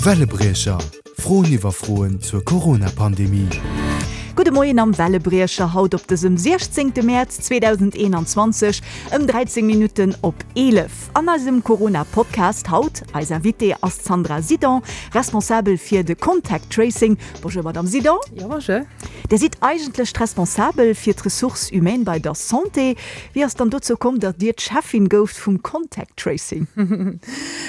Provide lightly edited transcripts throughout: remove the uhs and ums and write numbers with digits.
Wellebriecher, Froen iwwer Froen zur Corona-Pandemie. Gudde Moien am Wellebriecher haut op dësem 16 Mäerz 2021 ëm 13 Minutten op 11. An eisem Corona-Podcast haut, eis Invitée ass d'Sandra Sidon, Responsabel fir de Contact Tracing. Bonjour Madame Sidon. Jo, bonjour. Dir sidd eigentlech d'Responsabel fir d'Ressources humaines bei der Santé. Wéi ass dann dozou komm, datt Dir d'Cheffin gouft vum Contact Tracing?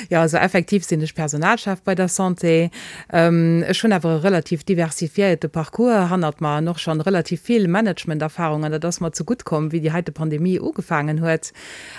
Jo, also effektiv sinn ech Personalchef bei der Santé. Ech hunn awer e relativ diversifiéierte Parcours hannert mer an och schonn relativ vill Managementerfahrung an dat ass mer zegutt komm, wéi déi heite Pandemie ugefaangen huet.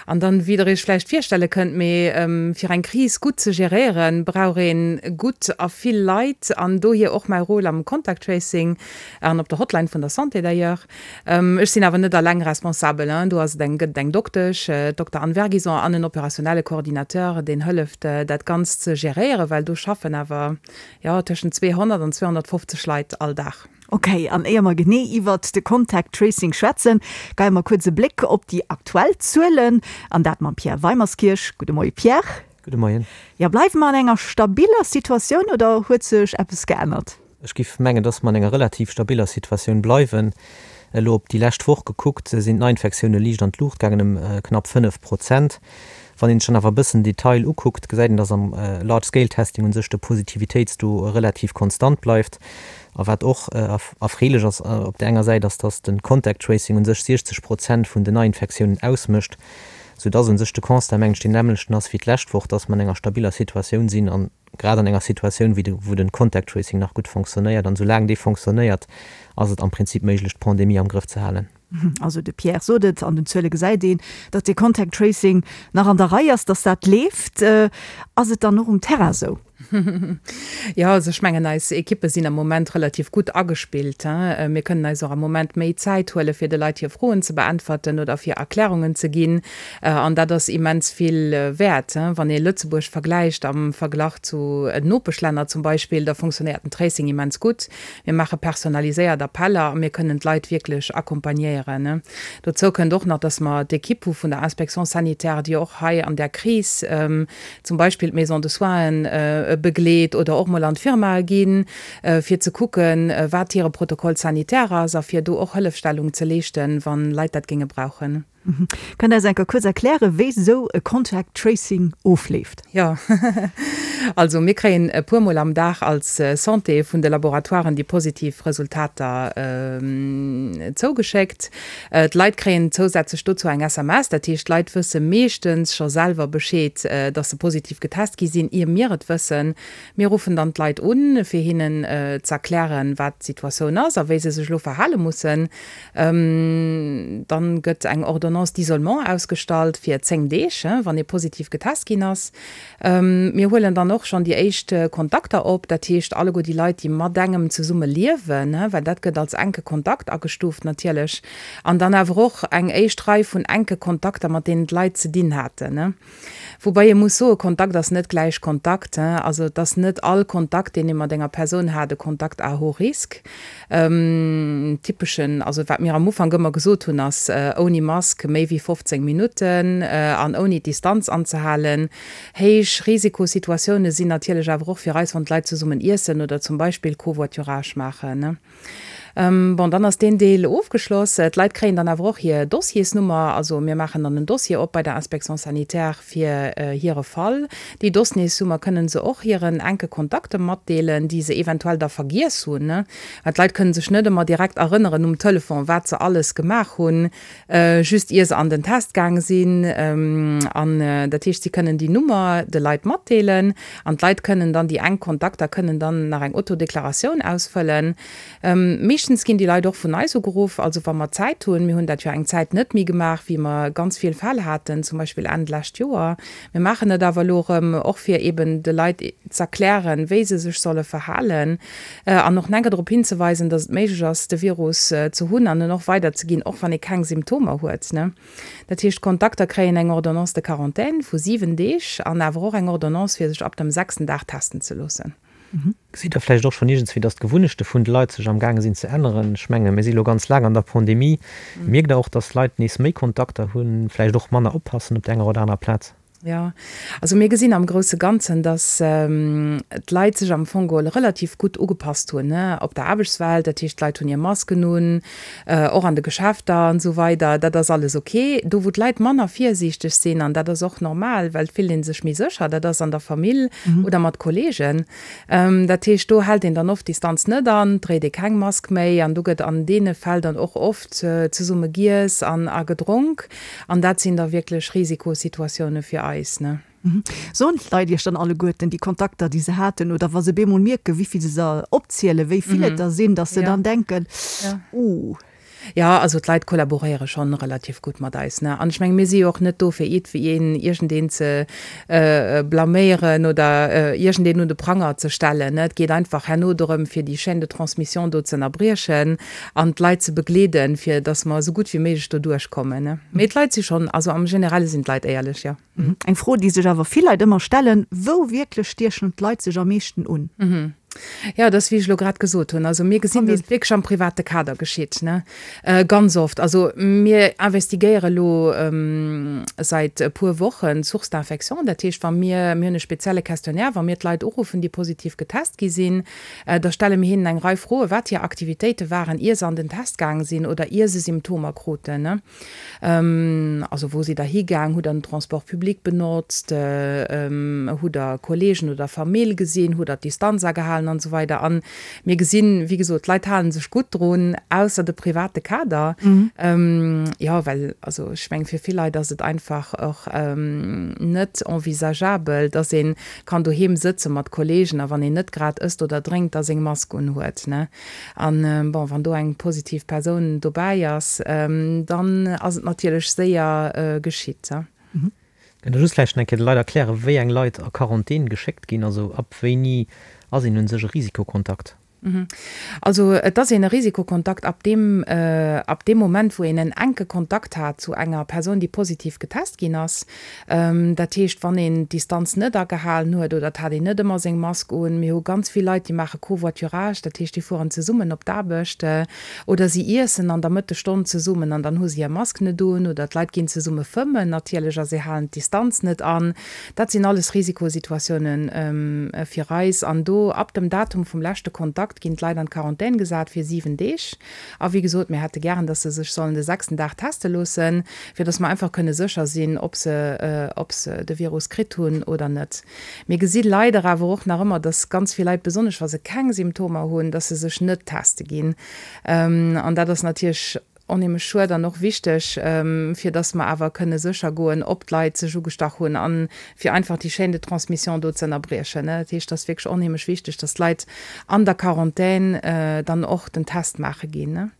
An dann, wéi Der Iech vläicht virstelle kënnt, mee fir eng Kris gutt ze geréieren, brauch ee gutt a vill Leit an dohier och mäi Rôle am Contact Tracing an op der Hotline vun der Santé d'ailleurs. Ech sinn awer net alleng responsabel, do ass et eng, gëtt et eng Doktesch, d'Dokter Anne Vergison, an en opérationnelle Coordinateur, deen hëlleft, dat Ganzt ze geréieren, well do schaffen awer, jo, tëschent 200 an 250 Leit all Dag. Ok, an éier mer genee iwwert de Contact Tracing schwätzen, geie mer kuerz e Bléck op déi aktuell Zuelen, an dat mam Pierre Weimerskirch. Gudde Moie Pierre. Gudde Moien. Jo, bleiwe mer an enger stabiller Situatioun oder huet sech eppes geännert? Ech giff mengen, dass mer an enger relativ stabiller Situatioun bleiwen. Elo op déi lescht Woch gekuckt, sinn d'Neiinfektioune liicht an d'Luucht gaangen, ëm knapp 5 Prozent. Wann een sech dann awer e bëssen Detail ukuckt, gesäit een, dass am Large Scale Testing u sech de Positivitéitstaux relativ konstant bleift. A wat och erfreelech ass op där enger Säit, ass, dass de Contact Tracing u sech 60 Prozent vun den Neiinfektiounen ausmécht, soudass u sech de Constat, mengen ech, deen nämmlechten ass wéi d'lescht Woch, dass mer an enger stabiller Situatioun sinn an grad an enger Situatioun, wéi de, wou den Contact Tracing nach gutt fonctionnéiert, an soulaang dee fonctionnéiert, ass et am Prinzip méiglech, d'Pandemie am Grëff ze halen. Also de Pierre sot et, an den Zuele gesäit een, datt dee Contact Tracing nach an der Rei ass, datt dat leeft. Ass et dann och um Terrain esou? Jo, also ech mengen, eis Ekippe sinn am Moment relativ gutt agespillt. Mir kënnen eis och am Moment méi Zäit huele fir de Leit hir Froen ze beäntwerten oder fir Erklärungen ze ginn. An dat ass immens vill wäert. Wann ee Lëtzebuerg vergläicht am Verglach zu Nopeschlänner zum Beispill, da funktionéiert den Tracing immens gutt. Mir maache personaliséiert Appeller a mir kënnen d'Leit wierklech accompagnéieren. Dozou kënnt och nach, dass mer d'Ekipp hu vun der Inspection sanitaire, déi och hei an där Kris zum Beispill d'Maison de soinen begleet oder och mol an d'Firmae ginn, fir ze kucken, wat hire Protocole sanitaire ass a fir do och Hëllefstellung ze leeschten, wa Leit dat géinge brauchen. Kënnt Der eis eng Kéier kuerz erklären, wéi esou e Contact Tracing ofleeft? Jo, also mir kréien e puer Mol am Dag als Santé vun de Laboratoiren déi positiv Resultater zougeschéckt. D'Leit kréien zousätzlech dozou eng SMS, dat heescht d'Leit wësse meeschtens scho selwer Bescheed, dass se positiv getest gi sinn, ier mir et wëssen. Mir ruffen dann d'Leit un, fir hinnen z'erklären, wat d'Situatioun ass a wéi se sech elo verhale mussen. Dann gëtt eng Ordonnance d'isolement ausgestallt fir 10 Deeg, wann ee positiv getest ginn ass. Mir huelen dann och schonn déi éischt Kontakter op, dat heescht alleguer déi Leit, déi mat engem zesumme liewen, well dat gëtt als enke Kontakt agestuuft natierlech. An dann awer och eng éischt Rei vun enke Kontakter, mat deenen d'Leit ze dinn haten. Woubai ee muss soen, Kontakt ass net gläich Kontakt. Also et ass net all Kontakt, deen ee mat enger Persoun hat, e Kontakt à haut risque. Typeschen, also wat mir am Ufank ëmmer gesot hunn, ass ouni Mask méi wéi 15 Minutten an ouni d'Distanz anzehalen. Héich Risikosituatioune sinn natierlech awer och fir eis, wann d'Leit zesummen iessen oder zum Beispill Covoiturage maachen. Bon, dann ass deen Deel ofgeschloss. D'Leit kréien dann awer och hir Dossiersnummer. Also mir maachen dann en Dossier op bei der Inspection sanitaire fir hire Fall. Déi Dossiersnummer kënnen se och hiren enke Kontakte matdeelen, déi se eventuell da vergiess hunn. Well d'Leit kënnen sech net ëmmer direkt erënneren um Telefon, wat se alles gemaach hunn, just ier se an den Test gaang sinn. An dat heescht, si kënnen déi Nummer de Leit matdeelen an d'Leit kënnen dann, déi enk Kontakter kënnen dann nach eng Autodeklaratioun ausfëllen. Meeschtens ginn déi Leit och vun eis ugeruff, also wa mer Zäit hunn. Mir hunn dat jo eng Zäit net méi gemaach, wéi mer ganz vill Fäll haten, zum Beispill Enn d'lescht Joer. Mir maachen et awer elo erëm, och fir eeben de Leit z'erklären, wéi se sech solle verhalen an och enker drop hinzeweisen, datt et méiglech ass, de Virus ze hunn an en och weiderzeginn, och wann ee keng Symptomer huet. Dat heescht, d'Kontakter kréien eng Ordonnance de quarantaine vu 7 Deeg an awer och eng Ordonnance, fir sech ab dem sechsten Dag testen ze loossen. Gesitt Der vläicht och schonn iergendswéi, datt d'Gewunnechte vun de Leit sech am gaange sinn ze änneren? Ech menge mir si lo ganz laang an der Pandemie. Mierkt Der och, datt d'Leit nees méi Kontakter hunn, vläicht och manner oppassen op der enger oder anerer Plaz? Jo, also mir gesinn am grousse Ganzen, datt d'Leit sech am Fong geholl relativ gutt ugepasst hunn op der Aarbechtswelt. Dat heescht, d'Leit hunn hir Masken un, och an de Geschäfter an esou weider. Dat ass alles ok. Do wou d'Leit manner virsiichteg sinn, an dat ass och normal, well et fillt ee sech méi sécher, dat ass an der Famill oder mat Kolleegen. Dat heescht, do hält een dann oft d'Distanz net an, dréit ee keng Mask méi an do gëtt an deene Fäll dann och oft zesumme giess an a gedronk. An dat sinn da wierklech Risikosituatioune fir eis, ne? Soen d'Leit Iech dann alleguerten déi Kontakter, déi se haten, oder wa se bemol mierken, wéi vill se se opzielen, wéi vill et der sinn, datt se dann denken, Uh. Jo, also d'Leit kollaboréiere schonn relativ gutt mat eis, ne? An ech menge mir si jo och net do fir iergendween, iergendeen ze blaméieren oder iergendeen un de Pranger ze stellen, ne? Et geet einfach herno dorëm, fir déi Chaîne de transmission do ze ënnerbriechen an d'Leit ze begleeden, fir dass mer esou gutt wéi méiglech do duerchkommen. Mee d'Leit si schonn, also am Generelle sinn d'Leit éierlech, jo. Eng Fro, déi sech awer vill Leit ëmmer stellen, Wou wierklech stiechen d'Leit sech am meeschten un? Jo, dat ass wéi ech elo grad gesot hunn. Also mir gesinn, dass et wierklech am private Kader geschitt, ne, ganz oft. Also mir investigéiere elo säit e puer Wochen d'Source d'infection. Dat heescht, wa mir, mir hunn e spezielle Questionnaire, wa mir d'Leit uruffen, déi positiv getest gi sinn, Da stelle mir hinnen eng Rei Froen, wat hir Aktivitéite waren, ier se an den Test gaang sinn oder ier se Symptomer kruten. Also wou sidd der higaang, hutt der den Transport public benotzt, hutt der Kolleegen oder Famill gesinn, hutt der d'Distanz agehalen an esou weider. An mir gesinn, wéi gesot, d'Leit hale sech gutt drun, ausser de private Kader. Jo, well also ech mengen, fir vill Leit ass et einfach och net envisageabel, dass een kann doheem sëtze mat Kollegen a wann een net grad ësst oder drénkt, da seng Mask unhuet, ne? An bon, wann do eng positiv Persoun dobäi ass, dann ass et natierlech séier geschitt. Kënnt Der just vläicht nach eng Kéier de Leit erklären, wéi eng Leit a Quarantän geschéckt ginn? Also ab wéini ass een un sech e Risikokontakt? Also et ass een e Risikokontakt ab deem, ab deem Moment, wou een en enke Kontakt hat zu enger Persoun, déi positiv getest ginn ass. Dat heescht, wann een d'Distanz net agehalen huet oder et hat een net ëmmer seng Mask un. Mir hu ganz vill Leit, déi maache Covoiturage, dat heescht, déi fueren zesummen op d'Aarbecht oder si iessen an der Mëttesstonn zesummen an dann hu se hir Mask net un oder d'Leit ginn zesumme fëmmen natierlech a se halen d'Distanz net an. Dat sinn alles Risikosituatiounen fir eis. An do, ab dem Datum vum leschte Kontakt, ginn d'Leit an d'Quarantän gesat fir 7 Deeg. A wéi gesot, mir hätte gären, dass se sech sollen de sechsten Dag teste loossen, fir dass mer einfach kënne sécher sinn, ob se, ob se de Virus kritt hunn oder net. Mir gesi leider awer och nach ëmmer, dass ganz vill Leit, besonnesch wa se keng Symptomer hunn, dass se sech net teste ginn. An dat ass natierlech Onheemlech schued an och wichteg, fir dass mer awer kënne sécher goen, ob d'Leit sech ugestach hunn a fir einfach déi Chaîne de transmission do ze ënnerbriechen. Dat heescht, et ass wierklech onheemlech wichteg, dass d'Leit an der Quarantän dann och den Test maache ginn.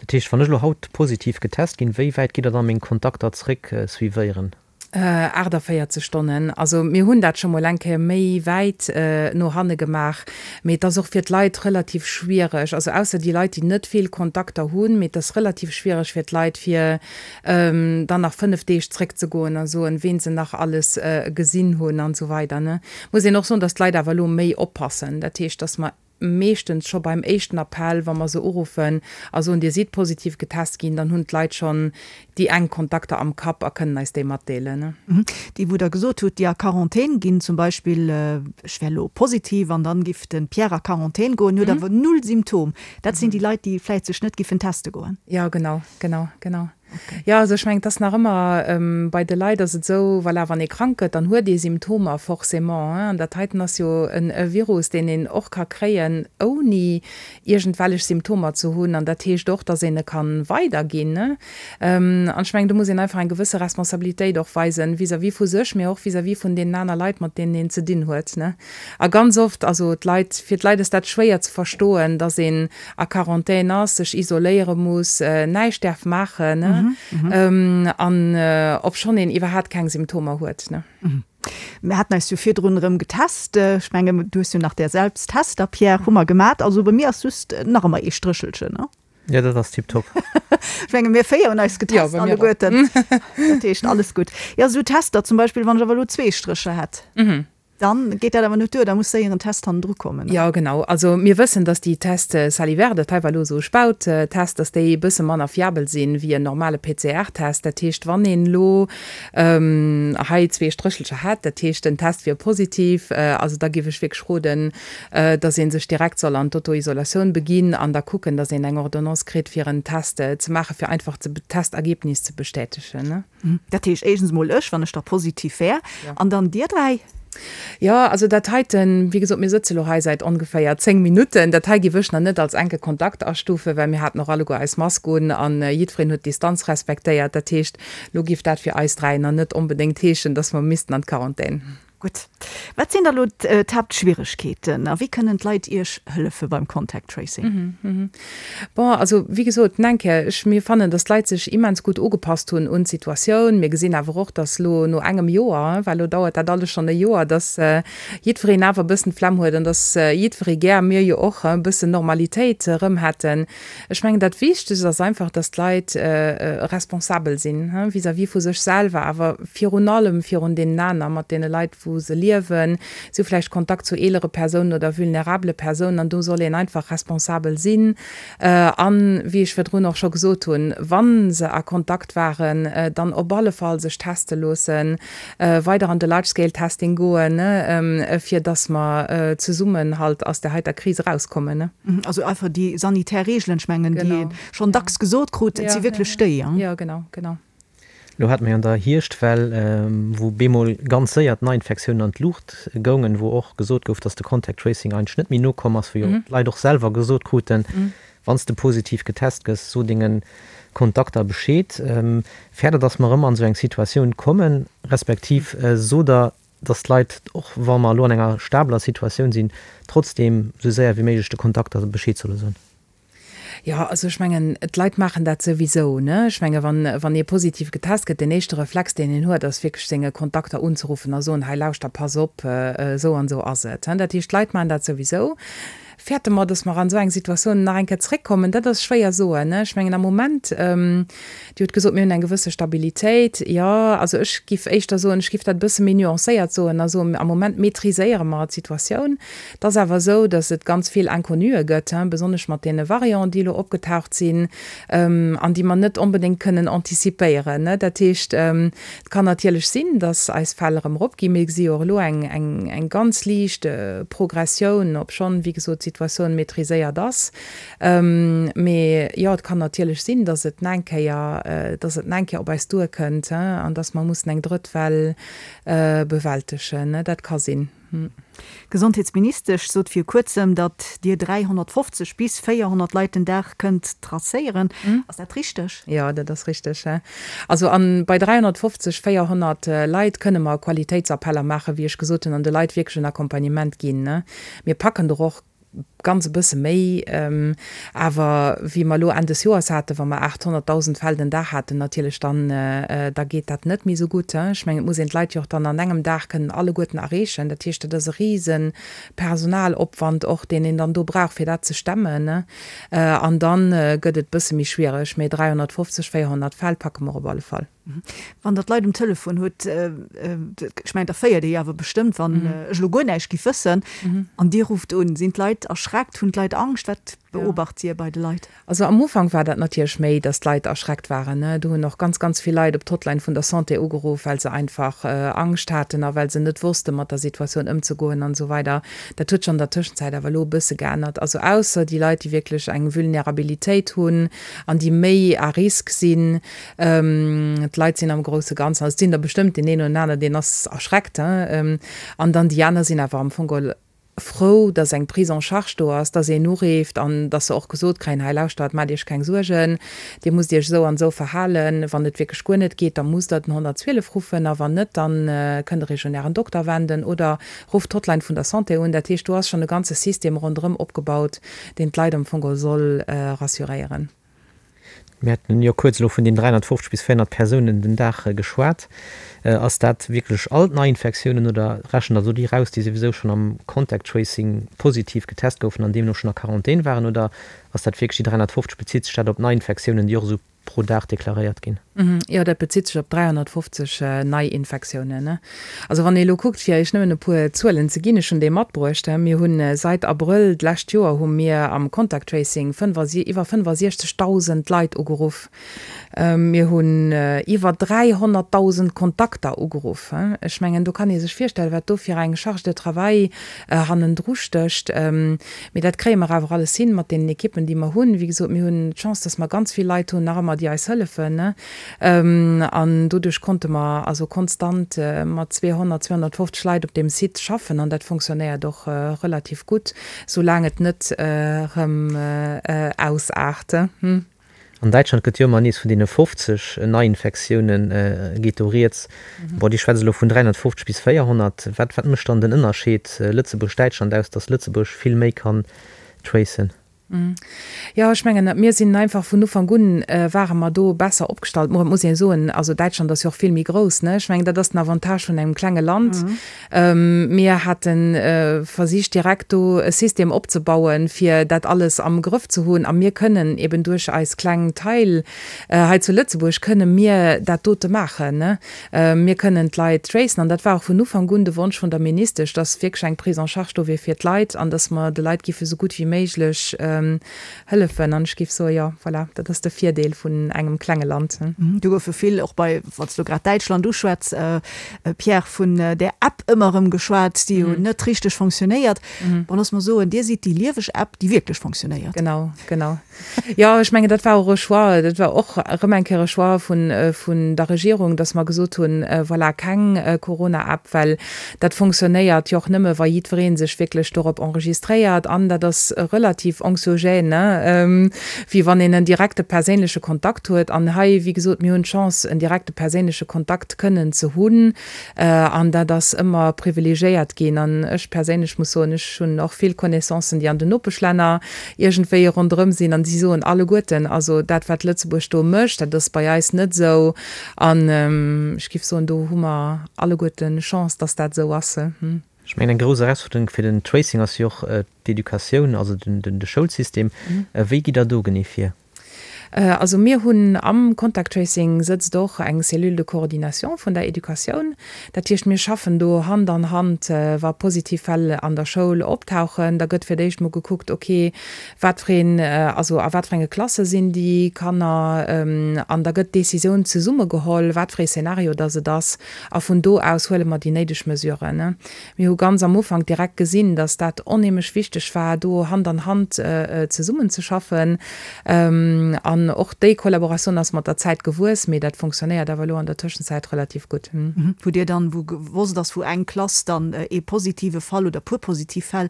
Dat heescht, wann ech elo haut positiv getest ginn, wéi wäit gitt Der da meng Kontakter zréck suivéieren? 48 Stonnen. Also mir hunn dat scho mol eng Kéier méi wäit no hanne gemaach, mee et ass och fir d'Leit relativ schwiereg, also ausser déi Leit, déi net vill Kontakter hunn, mee et ass relativ schwiereg fir d'Leit, fir dann nach 5 Deeg zréckzegoen a soen, ween se nach alles gesinn hunn an esou weider. Muss een och soen, datt d'Leit awer elo méi oppassen, dat heescht, datt mer meeschtens scho beim éischten Appell, wa mer se uruffen a soen, Dir sidd positiv getest ginn, dann hunn d'Leit schonn déi enk Kontakter am Kapp a kënnen eis déi matdeelen. Déi, wou Der gesot hutt, déi a Quarantän ginn, zum Beispill, ech wär elo positiv an dann giff de Pierre a Quarantän goen, huet awer null Symptom, dat sinn déi Leit, déi vläicht sech net giffen teste goen. Jo, genau, genau, genau. Jo, also ech mengen, et ass nach ëmmer, bei de Leit ass et esou, voilà, wann ee krank gëtt, dann huet ee Symptomer forcément. An dat heiten ass jo e Virus, deen een och ka kréien, ouni iergendwellech Symptomer ze hunn. An dat heescht och, datt een e ka weiderginn. An ech mengen, do muss een einfach eng gewësse Responsabilitéit och weisen, vis-à-vis vu sech, mee och vis-à-vis vun deenen aner Leit, mat deenen een ze dinn huet. A ganz oft, also d'Leit, fir d'Leit ass dat schwéier ze verstoen, datt een a Quarantän ass, sech isoléiere muss, näischt däerf maachen an obschonn een iwwerhaat keng Symptomer huet. Mir haten eis jo virdrun erëm getest. Ech mengen, du hues jo nach där Selbsttester, Pierre, hu mer gemat. Also bei mir ass just nach ëmmer ee Stréchelchen, ne? Jo, dat ass tiptop. Ech menge mir 4 hunn eis getest alleguerten. Dat heescht, alles gutt. Jo, esou Tester zum Beispill, wann ech awer elo zwee Strécher hätt. Dann geet dat awer net duer, da muss séier en Test hannendru kommen. Jo, genau. Also mir wëssen, dass déi Tests salivaires, dat hei war elo esou e Spauttest, dass déi e bësse manner fiabel sinn wéi en normale PCR-Test. Dat heescht, wann een elo hei zwee Stréchelcher hätt, dat heescht den Test wier positiv, also da géif ech wierklech roden, dass ee sech direkt soll an d'Auto-Isolatioun beginn an da kucken, dass een eng Ordonnance kritt, fir en Test ze maachen, fir einfach d'Testergebnis ze bestätegen. Dat heescht éischtens emol ech, wann ech da positiv wär, an dann dir dräi? Jo, also dat heiten, wéi gesot, mir sëtze lo hei säit ongeféier 10 Minutten. Dat hei géif ech nach net als enke Kontakt astufen, well mir haten och alleguer eis Mask un an jiddwereen huet d'Distanz respektéiert. Dat heescht, lo géif dat fir eis dräi nach net onbedéngt heeschen, dass mer missten an d'Quarantän. Gutt. Wat sinn da lo d'Haaptschwieregkeeten a wéi kënnen d'Leit Iech hëllefe beim Contact Tracing? Bon, also wéi gesot, nach eng Kéier, ech, mir fannen, datt d'Leit sech immens gutt ugepasst hunn un d'Situatioun. Mir gesinn awer och, datt lo no engem Joer, well lo dauert dat alles schonn e Joer, datt jiddwereen awer e bëssen d'Flemm huet an datt jiddweree gär, mir jo och, e bëssen Normalitéit erëm hätten. Ech mengen, dat Wichtegst ass einfach, dass d'Leit responsabel sinn vis-à-vis vu sech selwer, awer virun allem virun deenen aner, mat deene Leit, wou se liewen. Si hu vläicht Kontakt zu eelere Persounen oder vulnerabele Persounen an do soll een einfach responsabel sinn. An, wéi ech virdrun och scho gesot hunn, wa se a Kontakt waren, dann op alle Fall sech teste loossen, weider an de Large-Scale-Testing goen, fir dass mer zesummen halt aus där heiter Kris erauskommen. Also einfach déi sanitär Reegelen, ech mengen, déi ee schonn dacks gesot krut, et si wierklech déi. Jo, genau, genau. Elo hate mer jo an der Hierschtwell, wou bemol ganz séier d'Neiinfektiounen an d'Luucht goungen, wou och gesot gouf, dass de Contact Tracing eigentlech net méi nokomm ass, wou jo d'Leit och selwer gesot kruten, Wann s de positiv getest gëss, so denge Kontakter Bescheed. Fäert Der, dass mer erëm an esou eng Situatioun kommen, respektiv sot Der, dass d'Leit, och wa mer elo an enger stabeler Situatioun sinn, trotzdeem esou séier wéi méiglech de Kontakter Bescheed solle soen? Jo, also ech mengen, d'Leit maachen dat souwisou, ne? Ech menge wann, wann ee positiv getest gëtt, deen éischte Reflex, deen een huet, ass wierklech senge Kontakter unzeruffen a soen, hei lauschter, pass op, esou an esou ass et. Dat heescht, d'Leit maachen dat souwisou. Fäerte mer, dass mer an esou eng Situatioun nach eng Kéier zréckkommen? Dat ass schwéier soen. Ech mengen am Moment, Dir hutt gesot, mir hunn eng gewësse Stabilitéit. Jo, also ech giff éischter soen, ech giff dat e bësse méi nuancéiert soen a soen, am Moment maîtriséiere mer d'Situatioun. Et ass awer esou, dass et ganz vill Inconnuë gëtt, besonnesch mat deene Varianten, déi elo opgetaucht sinn an déi mer net onbedéngt kënnen anticipéieren. Dat heescht, Et kann natierlech sinn, dass eis Fäll erëm eropginn. Mir gesi jo och elo eng ganz liicht Progressioun, obschonn, wéi gesot, d'Situatioun maîtriséiert ass. Mee jo, et kann natierlech sinn, dass et nach eng Kéier, dass et nach eng Kéier op eis duerkënnt an dass mer mussen eng drëtt Well bewältegen. Dat ka sinn. D'Gesondheetsministesch sot vir kuerzem, datt Dir 350 bis 400 Leit den Dag kënnt tracéieren. Ass dat richteg? Jo, dat ass richteg. Also a bei 350, 400 Leit kënne mer Qualitéitsappeller maachen, wéi ech gesot hunn, an de Leit wierklech en Accompagnement ginn. Mir packen der och ganz e bësse méi, awer wéi mer elo Enn des Joers haten, wa mer 800.000 Fäll den Dag haten natierlech, dann da geet dat net méi esou gutt. Ech mengen, et muss een d'Leit jo och dann an engem Dag kënnen alleguerten erreechen. Dat heescht, dat ass e rise Personalopwand och, deen een dann do brauch, fir dat ze stemmen. An da gëtt et e bësse méi schwiereg, mee 350, 400 Fäll packe mer op alle Fall. Wann Der d'Leit um Telefon hutt, ech mengen, da féiert Dir jo awer bestëmmt, wann ech elo guer näischt giff wëssen an Dir rufft un, sinn d'Leit erschreckt, hunn d'Leit Angscht? Wat beobacht Dir bei de Leit? Also am Ufank war dat natierlech méi, datt d'Leit erschreckt waren. Do hunn och ganz, ganz vill Leit op d'Hotline vun der Santé ugeruff, well se einfach Angscht haten a well se net wosste mat der Situatioun ëmzegoen an esou weider. Dat huet sech an der Tëschenzäit awer elo e bësse geännert. Also ausser déi Leit, déi wierklech eng Vulnerabilitéit hunn an déi méi à risque sinn, D'Leit sinn am grousse Ganzen, also et sinn der bestëmmt deen een oder aneren, deen ass erschreckt, an dann déi aner sinn awer am Fong geholl frou, datt eng Prise en charge do ass, datt een ureeft an datt se och gesot kréien, hei lauschtert, maacht Iech keng Suergen, Dir musst Iech esou an esou verhalen, wann et wierklech guer net geet, da musst Der den 112 ruffen a wann net, da kënnt Der Iech un Ären Dokter wenden oder rufft d'Hotline vun der Santé un. Dat heescht, do ass schonn e ganze System ronderëm opgebaut, deen d'Leit am Fong geholl soll rassuréieren. Mir haten jo kuerz elo vun den 350 bis 400 Persounen den Dag geschwat. Ass dat wierklech all d'Neiinfektiounen oder rechent Der do déi raus, déi souwisou schonn am Contact Tracing positiv getest goufen an deemno schonn a Quarantän waren? Oder ass dat wierklech déi 350, bezitt sech dat op Neiinfektiounen, déi och esou. pro Dag deklaréiert ginn. Jo, dat bezitt sech op 350 Neiinfektiounen. Also wann ee elo kuckt, fir Iech nëmmen e puer Zuelen ze ginn, ech hunn déi matbruecht, mir hu seit Abrëll d'lescht Joer hu mir am Contact Tracing iwwer 65.000 Leit ugeruff. Mir hunn iwwer 300.000 Kontakter ugeruff. Ech mengen, do kann ee sech virstellen, wat do fir eng Charge de travail hannendru stécht. Mee dat kréie mer awer alles hin mat deenen Ekippen, déi mer hunn. Wéi gesot, mir hunn d'Chance, dass mer ganz vill Leit hunn nach ëmmer, déi eis hëllefen. An doduerch konnte mer also konstant mat 200, 250 Leit op deem Site schaffen. An dat fonctionnéiert och relativ gutt, soulaang et net erëm ausaart. An Däitschland gëtt jo ëmmer nees vun deene 50 Neiinfektioune geet do rieds. Bon, Dir schwätzt elo vun 350 bis 400. Wat wat mécht dann den Ënnerscheed Lëtzebuerg-Däitschland aus, datt Lëtzebuerg vill méi kann tracen? Jo, ech mengen, mir sinn einfach vun Ufank un ware mer do besser opgestallt. Mo et muss een soen, also Däitschland ass jo och vill méi grouss, ne? Ech mengen, dat ass den Avantage vun engem klenge Land. Mir hate versicht direkt do e System opzebauen, fir dat alles am Grëff ze hunn. A mir kënnen eben duerch eis kleng Taille hei zu Lëtzebuerg kënne mir dat dote maachen. Mir kënnen d'Leit tracen. An dat war och vun Ufank un de Wonsch vun der Ministesch, dass wierklech eng Prise en charge do wier fir d'Leit an dass mer de Leit giffe sou gutt wéi méiglech Hëllefen. An ech géif soen, jo, voilà, dat ass de Virdeel vun engem klenge Land. Do goufe vill, och bei, wann s du grad Däitschland uschwätz, Pierre, vun där App ëmmer erëm geschwat, déi jo net richteg fonctionnéiert. Bon, looss mer soen, Dir sidd déi lieweg App, déi wierklech fonctionnéiert. Genau, genau. Jo, ech mengen, dat war och e Choix, dat war och erëm eng Kéier e Choix vun, vun der Regierung, dass mer gesot hunn, voilà, keng Corona-App, well Dat fonctionnéiert jo och nëmme wa jiddweree sech wierklech dorop enregistréiert an dat ass relativ anxiogène, wéi wann een en direkte perséinleche Kontakt huet. An hei, wéi gesot, mir hunn d'Chance en direkte perséinleche Kontakt kënnen ze hunn an dat ass ëmmer privilegiéiert ginn. An ech perséinlech muss soen, ech hunn och vill Connaissancen, déi an den Nopeschlänner iergendwéi ronderëm sinn an déi soen alleguerten, also dat wat Lëtzebuerg do mécht, dat ass bei eis net esou. An ech géif soen, do hu mer alleguerten Chance, dass dat esou ass. Ech mengen, eng grouss Erausfuerderung fir den Tracing ass jo och d'Educatioun, also de Schoulsystem. Wéi gitt Der do genee vir? Also mir hunn am Contact Tracing sëtzt och eng Cellule de coordination vun der Educatioun. Dat heescht, mir schaffen do Hand an Hand, wa positiv Fäll an der Schoul optauchen. Da gëtt fir d'éischt mol gekuckt, okay, Wat fir een, also a wat fir enge Klasse sinn déi Kanner? An da gëtt d'Décisioun zesumme geholl, wat fir ee Szenario dass et ass. A vun do aus huele mer déi néideg Mesuren. Mir hu ganz am Ufank direkt gesinn, dass dat onheemlech wichteg war, do Hand an Hand zesummenzeschaffen. An och déi Kollaboratioun ass mat der Zäit gewuess, mee dat fonctionnéiert awer elo an der Tëschenzäit relativ gutt. Wou Dir dann, wou gewosst ass, wou eng Klass dann ee positive Fall oder puer positiv Fäll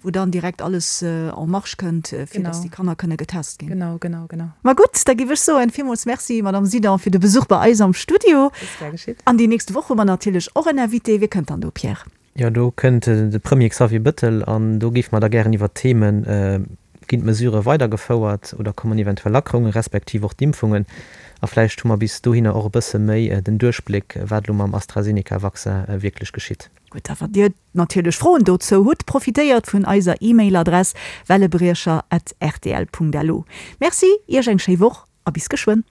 Wou dann direkt alles en marche kënnt, fir dass déi Kanner kënne getest ginn. Genau, genau, genau. Ma gutt, da géif ech soen, villmools Merci, Madame Sidan, fir de Besuch bei eis am Studio. Ist gär geschitt. An déi nächst Woch hu mer natierlech och en Invité. Wie kënnt dann do, Pierre? Jo, do kënnt de Premier Xavier Bëttel an do géife mer da gären iwwert d'Themen, Ginn d'Mesurë weidergefouert oder kommen eventuell Lackerungen, respektiv och d'Impfungen? A vläicht hu mer bis dohinner och e bësse méi den Duerchbléck, wat elo mam AstraZeneca-Vaccin wierklech geschitt. Gutt, a wann Dir natierlech Froen dozou hutt, profitéiert vun eiser E-Mail-Adress wellebriecher at rtl.lu. Merci, Iech eng schéi Woch a bis geschwënn.